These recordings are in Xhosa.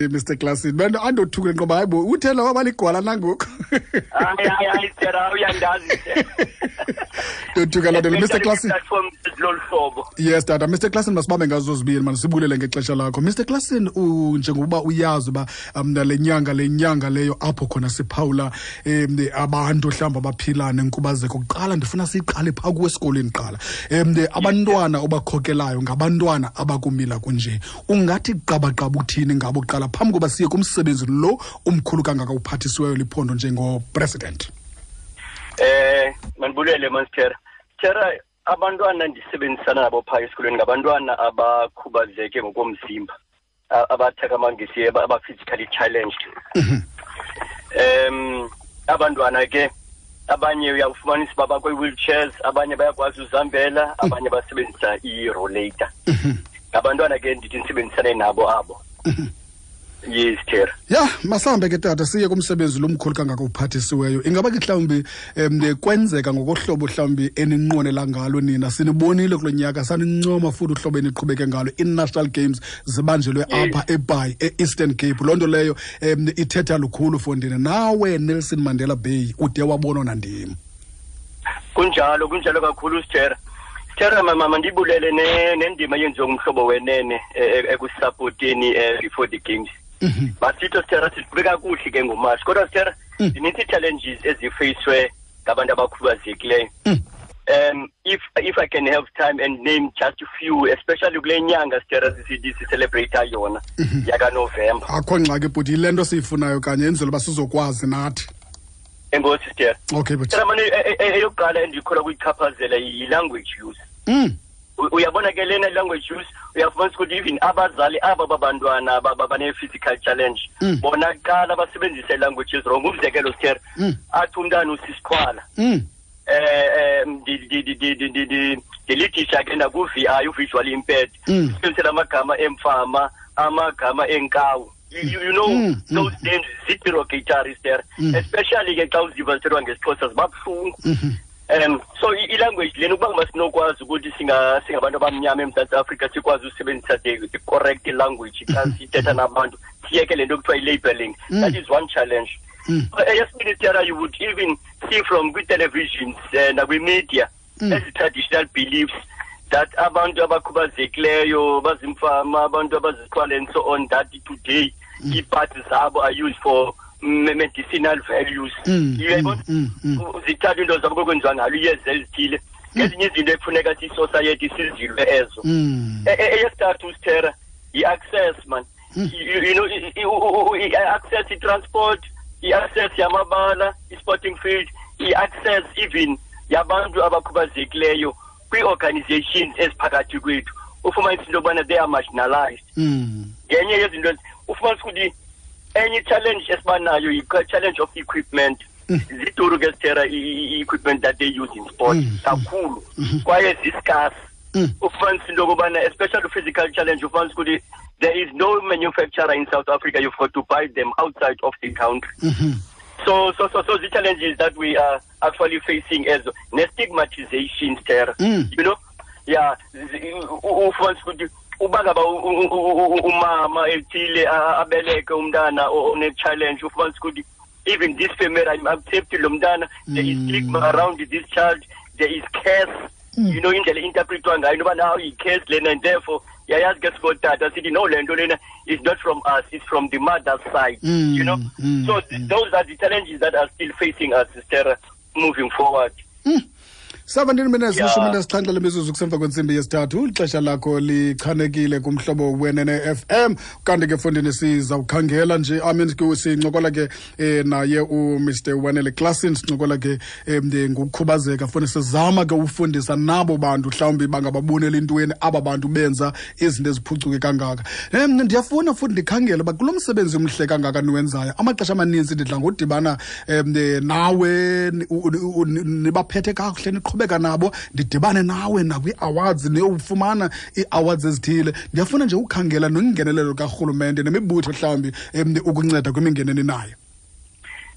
Mr Klassen bento andothuke ngoba hayibo uthe lawa baligwala nangoku. Hayi hayi hayi Tera uyandazi. Ndothuka loo nto Mr Klassen. Platform lolu hlobo. Yes tata Mr Klassen masibambe ngazo zibini mani sibulele ngexesha lakho. Mr Klassen njengokuba uyazi uba le nyanga le nyanga leyo apho khona siphawula abantu mhlawumbi abaphila nenkubazeko kuqala ndifuna siyiqale phaa kuwe esikolweni kuqala. Abantwana obakhokelayo ngabantwana abakumila kunje. Ungathi qabaqaba uthini ngabo kuqala phambi koba siye kumsebenzi lo umkhulu kangaka uphathisiweyo liphondo njengopresident? Mandibulele Monster. Tera, abantwana ndisebenzisana nabo phaa esikolweni ngabantwana abakhubazeke ngokomzimba, abathaka amangesi, aba-physically challenged. Abantwana ke abanye uyafumanisa uba bakwi-wheelchairs, abanye bayakwazi uzihambela, abanye basebenzisa i-rollator. Ngabantwana ke ndithi ndisebenzisane nabo abo. Yes, Tera. Ya, masambe ke tata siye kumsebenzi lomkhulu kangaka uphathisiweyo. Ingaba ke mhlawumbi kwenzeka ngokohlobo mhlawumbi eninqwenela ngalo nina? Sinibonile kulo nyaka, sanincoma futhi uhlobo eniqhubeke ngalo. I-National Games zibanjelwe apha eBhayi, e-Eastern Cape. Loo nto leyo ithetha lukhulu for ndina. Nawe Nelson Mandela Bay ude wabonwa nandim. Kunjalo, kunjalo kakhulu Tera. Tera mama ndibulele nendima yenziwe ngumhlobo wenene ekusupporteni before the games. Basitho Tera siqhube kakuhle ke ngoMarch. Kodwa Tera zininzi challenges ezifeyiswe ngabantu abakhubazekileyo. If I can have time and name just a few, especially kule nyanga Tera sisithi celebrate yona yaka November. Akho ngxaki bhuti, yile nto siyifunayo kanye enzela uba sizokwazi nathi. Enkosi Tera. Okay bhuti. Tera mane eyokuqala endikholwa kuyichaphazela yi-language use. Uyabona ke lena language use, uyafumanisa ukuthi even abazali aba babantwana bane-physical challenge, bona kuqala basebenzise languages wrong. Umzekelo Tera, athi umntana usisiqhwala. Ndilithisha ke naku-V I, u-visually impaired. Sisebenzisela amagama emfama, amagama enkawu. Those names zi-derogatory there. Especially ke xa uziva zithethwa ngesiXhosa ziba buhlungu. So i-language lena ukuba masinokwazi ukuthi singabantu abamnyama eMzantsi Afrika sikwazi usebenzisa the correct language xa sithetha nabantu, siyeke le nto kuthiwa i-labeling. That is one challenge. Eyesibini Tera, you would even see from kwi-televisions nakwi-media ezi traditional beliefs that abantu abakhubazekileyo bazimfama, abantu abaziqhwala and so on, that today ii-parts zabo are used for medicinal values. Uyayibona? Zithatha into zabo kwenziwa ngalo iyeza ezithile. Ngezinye izinto ekufuneka siyi-society sizilwe ezo. Eyesithathu Tera, yi-access man. I-access i-transport, i-access yamabala, i-sporting field, i-access even yabantu abakhubazekileyo kwii-organizations eziphakathi kwethu. Ufumanisa into yobana they are marginalized. Ngenye yezinto ufumanisa ukuthi enye challenge esibanayo yi-challenge of equipment. Ziduru ke Tera i-equipment that they use in sport kakhulu, kwaye zi-scarce. Ufumanisa into yokubana especially physical challenge, ufumanisa ukuthi there is no manufacturer in South Africa, you've got to buy them outside of the country. So the challenges that we are actually facing as ne-stigmatization Tera. You know? Yeah, ufumanisa ukuthi uba ngaba umama ethile abeleke umntana one-challenge, ufumanisa ukuthi even this family I'm accepting lo mntana, there is stigma around this child, there is curse. You know, indlela interpretwa ngayo noba naw yi-curse lena, and therefore yayazi ke sikotata sithi no, le nto lena is not from us, it's from the mother's side. You know? So those are the challenges that are still facing us, Sister, moving forward. 17 minutes 17 lemizuzu kusemva kwentsimbi yesithathu. Ixesha lakho lichanekile kumhlobo wenene FM. Kanti ke fondini sizawukhangela nje, I mean, sincokola ke naye uMr Wanele Klassen, sincokola ke ngokukhubazeka. Funa sizama ke ufundisa nabo bantu mhlawumbi bangababonela intweni aba bantu benza izinto eziphucuke kangaka. Ndiyafuna futhi ndikhangele uba kulo msebenzi umhle kangaka niwenzayo, amaxesha amaninzi ndidla ngodibana nawe nibaphethe kakuhle, niqhubeka nabo, ndidibane nawe nakwii-awards, niyofumana ii-awards ezithile. Ndiyafuna nje ukhangela nongenelelo karhulumente nemibutho mhlawumbi ukunceda kwimingeni eninayo.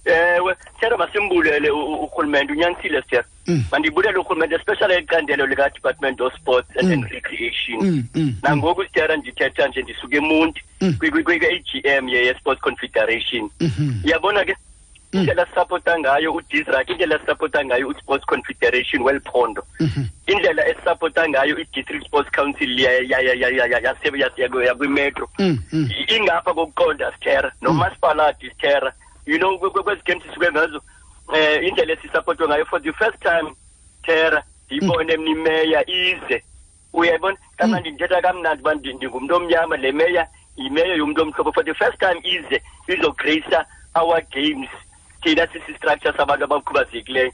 Ewe, Sithera, masimbulele urhulumente, unyanisile Sithera. Mandibulele urhulumente, especially icandelo lika-Department of Sports and Recreation. Nangoku Sithera ndithetha nje ndisuka eMonti kwi-AGM ye-Sports Confederation. Uyabona ke indlela sisapota ngayo uDisrac, indlela sisapota ngayo uSports Confederation weliphondo, indlela esisapota ngayo i-District Sports Council yakwimetro, ingapha kokuqonda Sithera, nomasipalati Sithera. You know, kwezi games sisuke ngazo, indlela esisapotwe ngayo for the first time Sithera, ndiyibone mna imeya ize. Uyayibona kamnandi, ndithetha kamnandi uba ndingumntu omnyama, le meya yimeya yomntu omhlophe. For the first time ize izograce our games, thina sisi-structure sabantu abakhubazekileyo.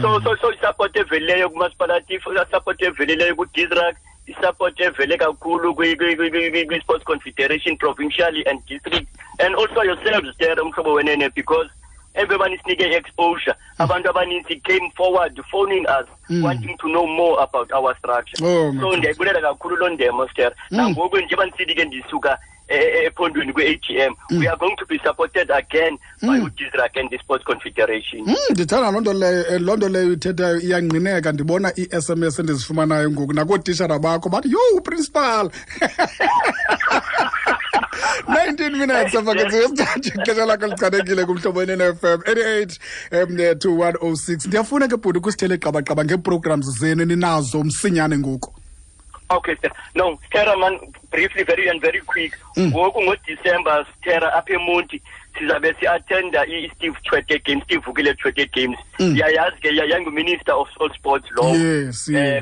So isupport evelileyo kumasipalati, isupport evelileyo kuDisrac, isupport evele kakhulu kwi-Sports Confederation provincially and district, and also yourselves there, Umhlobo Wenene, because everyone isinike exposure. Abantu abaninzi came forward phoning us, wanting to know more about our structure. So ndiyayibulela kakhulu loo ndemo, Sithera. Nangoku njengoba ndisithi ke ndisuka ephondweni kwe-AGM, we are going to be supported again by uDisrac and the Sports Confederation. Ndithanda loo nto leyo, loo nto leyo ithethayo iyangqineka. Ndibona ii-SMS endizifumanayo ngoku nakootishara bakho bathi, yho, principal. 19 minutes emva kwentsimbi yesithathu, ixesha lakho lichanekile kuMhlobo Wenene FM 88 to 106. Ndiyafuna ke bhuti ukusithele qabaqaba ngee-programs zenu eninazo msinyane ngoku. Okay, sir. No, Sithera man, briefly, very and very quick. Ngoku ngoDecember, Sithera, apha eMonti sizabe si-attenda i-Steve Tshwete Games, Steve Vukile Tshwete Games. Yayazi ke yangu-Minister of All Sports lowo.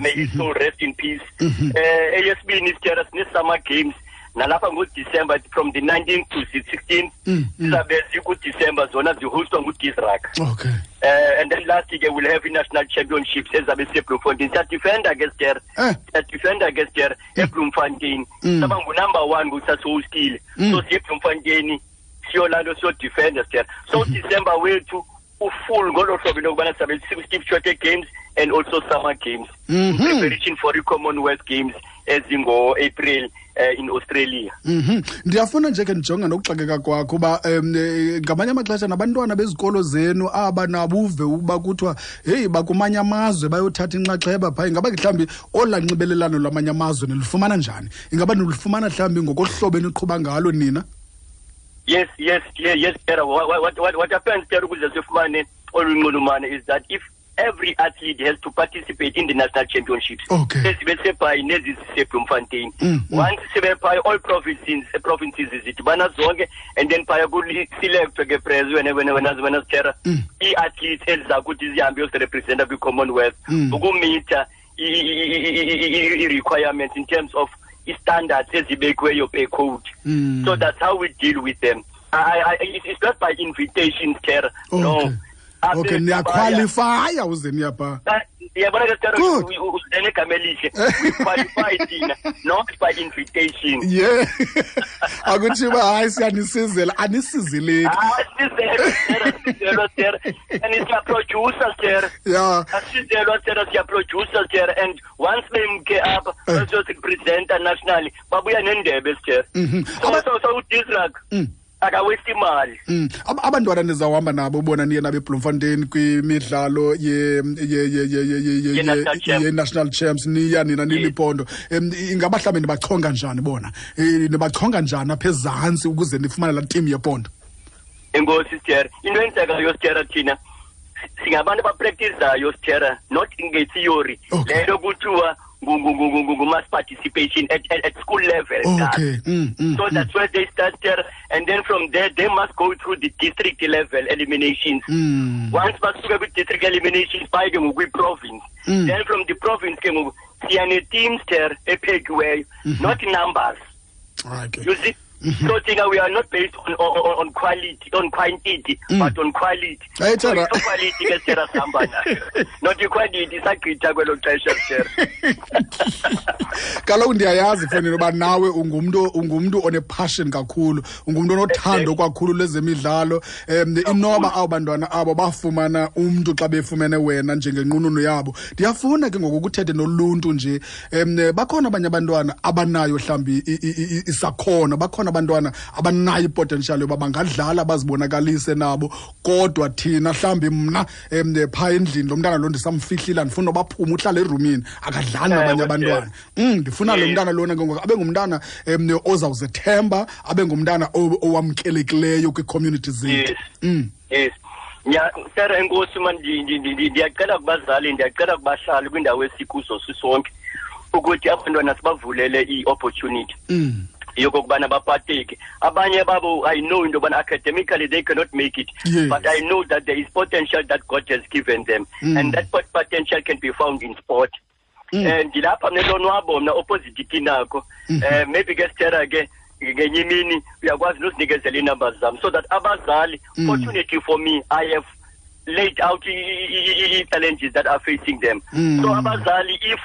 May his soul rest in peace. Eyesibini Sithera, sine-Summer Games nalapha ngoDecember from the 19th to the 16th. Sizabe zikuDecember, zona zihostwa nguDisrac. And then last year we'll have i-national championships ezabe siseBloemfontein. Siyadefenda ke Sithera. Siyadefenda ke Sithera eBloemfontein. Saba ngu-number 1 kusasihostile. So siye eBloemfontein siyolando siyodefenda Sithera. So December wethu ufull ngolo hlobo into yokubana sizabe Steve Tshwete Games and also Summer Games. Preparation for the Commonwealth Games ezingo-April in Australia. Ndiyafuna nje ke ndijonga nokuxakeka kwakho uba ngamanye amaxesha nabantwana bezikolo zenu aba nabuve ukuba kuthiwa heyi bakumanye amazwe bayothatha inxaxheba phaa, ingaba ke mhlawumbi olaa nxibelelano lwamanye amazwe nilufumana njani? Ingaba nilufumana mhlawumbi ngokohlobo eniqhuba ngalo nina? Yes, yes, yes, yes, Tera. What happens, Tera, ukuze sifumane olu nxulumano is that if every athlete has to participate in the national championships. Ezibe sebhayi nezi ziseBloemfontein. Once sibe phaya, all provinces zidibana zonke, and then phaya kuselectwe ke prez wena wena wena wena Sithera, ii-athletes eziza kuthi zihambe yozirepresenta kwi-Commonwealth, ukumitha i-requirements in terms of i-standards ezibekiweyo per code. So that's how we deal with them. It's not by invitation, Sithera. No. Okay, niyaqualifya uze niyapha. Yabona ke Sithera, uzenegama elihle. We qualify thina, not by invitation. Yeah. Akuthiwa hayi siyanisizela, anisizeleki. Asizelwa Sithera, asizelwa Sithera. And siyaproducer Sithera. Asizelwa Sithera, siyaproducer Sithera. And once bemke apha, bazorepresenta nationally, babuya nendebe Sithera. So uDisrac akawesti imali. Abantwana nizawuhamba nabo bona niye nabo eBloemfontein kwimidlalo ye-National Champs, niya nina niliphondo. Ingaba mhlawumbi nibachonga njani bona? Nibachonga njani apha ezantsi ukuze nifumane laa team yephondo? Enkosi Sithera. Into eyenzekayo Sithera, thina singabantu abapractizayo Sithera, not nge-theory. Le nto kuthiwa mass participation at school level. So that's where they start there, and then from there they must go through the district level eliminations. Once basuka kwi-district eliminations baye ke ngoku kwi-province. Then from the province ke ngoku siya ne-teams there ephekiweyo, not numbers. You see? So thina we are not based on quality, on quantity, but on quality. Hey, Tara. So quality ke Tara sihamba nayo. Not quantity, sagqitha kwelo xesha Tara. Kaloku ndiyayazi mfondini uba nawe ungumntu one-passion kakhulu, ungumntu onothando kakhulu lwezemidlalo. Inoba abo bantwana abo bafumana umntu xa befumene wena njengenqununu yabo. Ndiyafuna ke ngoku ukuthethe noluntu nje. Bakhona abanye abantwana abanayo mhlawumbi isakhono, bakhona abantwana abanayo ipotential yoba bangadlala bazibonakalise nabo, kodwa thina mhlawumbi mna phaa endlini lo mntana lo ndisamfihlile, andifuna noba aphume, uhlala erumini akadlali nabanye abantwana. Ndifuna lo mntana lona ke ngoku abe ngumntana ozawuzethemba, abe ngumntana owamkelekileyo kwii-community zethu. Yes. Sarah, enkosi man, ndiyacela kubazali, ndiyacela kubahlali kwindawo esikuzo sisonke ukuthi abantwana sibavulele i-opportunity yokokubana bapateke. Abanye babo, I know into yobana academically they cannot make it, but I know that there is potential that God has given them, and that potential can be found in sport. Ndilapha mna elonwabo, mna opposite kinako. Maybe ke sithera ke ngenye imini uyakwazi nozinikezela ii-numbers zam so that abazali, fortunately for me, I have laid out i-challenges that are facing them. So abazali, if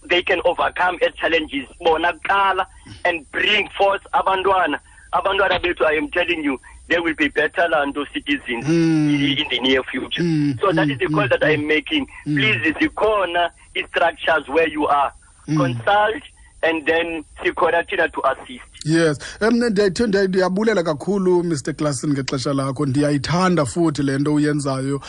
they can overcome as challenges bona kuqala and bring forth abantwana bethu, I am telling you, they will be better lanto citizens in the near future. So that is the call that I am making. Please, zikhona i-structures where you are. Consult and then sikhona thina to assist. Yes. Ndiyabulela kakhulu, Mr Klassen, ngexesha lakho. Ndiyayithanda futhi le nto uyenzayo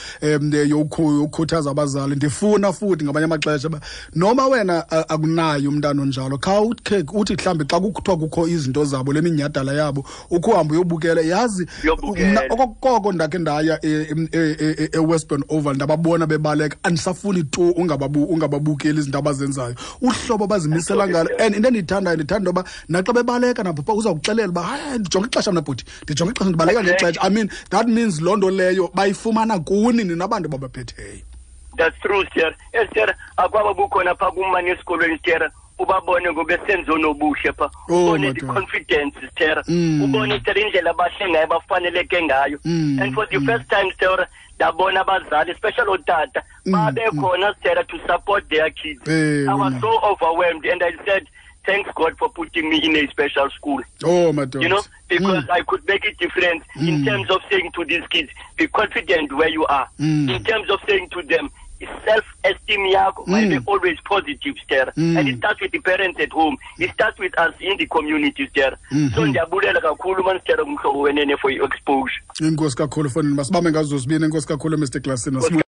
yokukhuthaza abazali. Ndifuna futhi ngamanye amaxesha uba noma wena akunayo umntana onjalo, khawukhe uthi mhlawumbi xa kuthiwa kukho izinto zabo, le minyhadala yabo, ukhe uhambe uyobukela, yazi. Uyobukela. Mna okokoko ndakhe ndaya eWestbourne Oval, ndababona bebaleka, andisafuni tu ungababukeli izinto abazenzayo, uhlobo abazimisela ngalo. And into endiyithandayo, ndithanda intoba naxa bebaleka nabo pha uzawukuxelela uba hayi, ndijonge ixesha mna bhuti, ndijonge ixesha, ndibaleka ngexesha. I mean, that means loo nto leyo bayifumana kuni nina bantu babaphetheyo. That's true, sir. Sir, akwaba bukhona pha kumane esikolweni, sir, ubabone ngobesenzo nobuhle pha. Oh, Ubone the madoda. confidence, sir. Ubone, sir, indlela abahle ngayo, bafaneleke ngayo. And for the first time, sir, ndabona abazali, especially ootata, babe khona, sir, to support their kids. I was so overwhelmed and I said, thanks God for putting me in a special school. Oh, madoda. Because I could make a difference in terms of saying to these kids, be confident where you are. In terms of saying to them, self-esteem yakho might be always positive, sir. And it starts with the parents at home. It starts with us in the community, sir. So ndiyabulela kakhulu man, sir, umhlobo wenene for your exposure. Enkosi kakhulu, fondini, masibambe ngazo zibini. Enkosi kakhulu, Mr Klassen.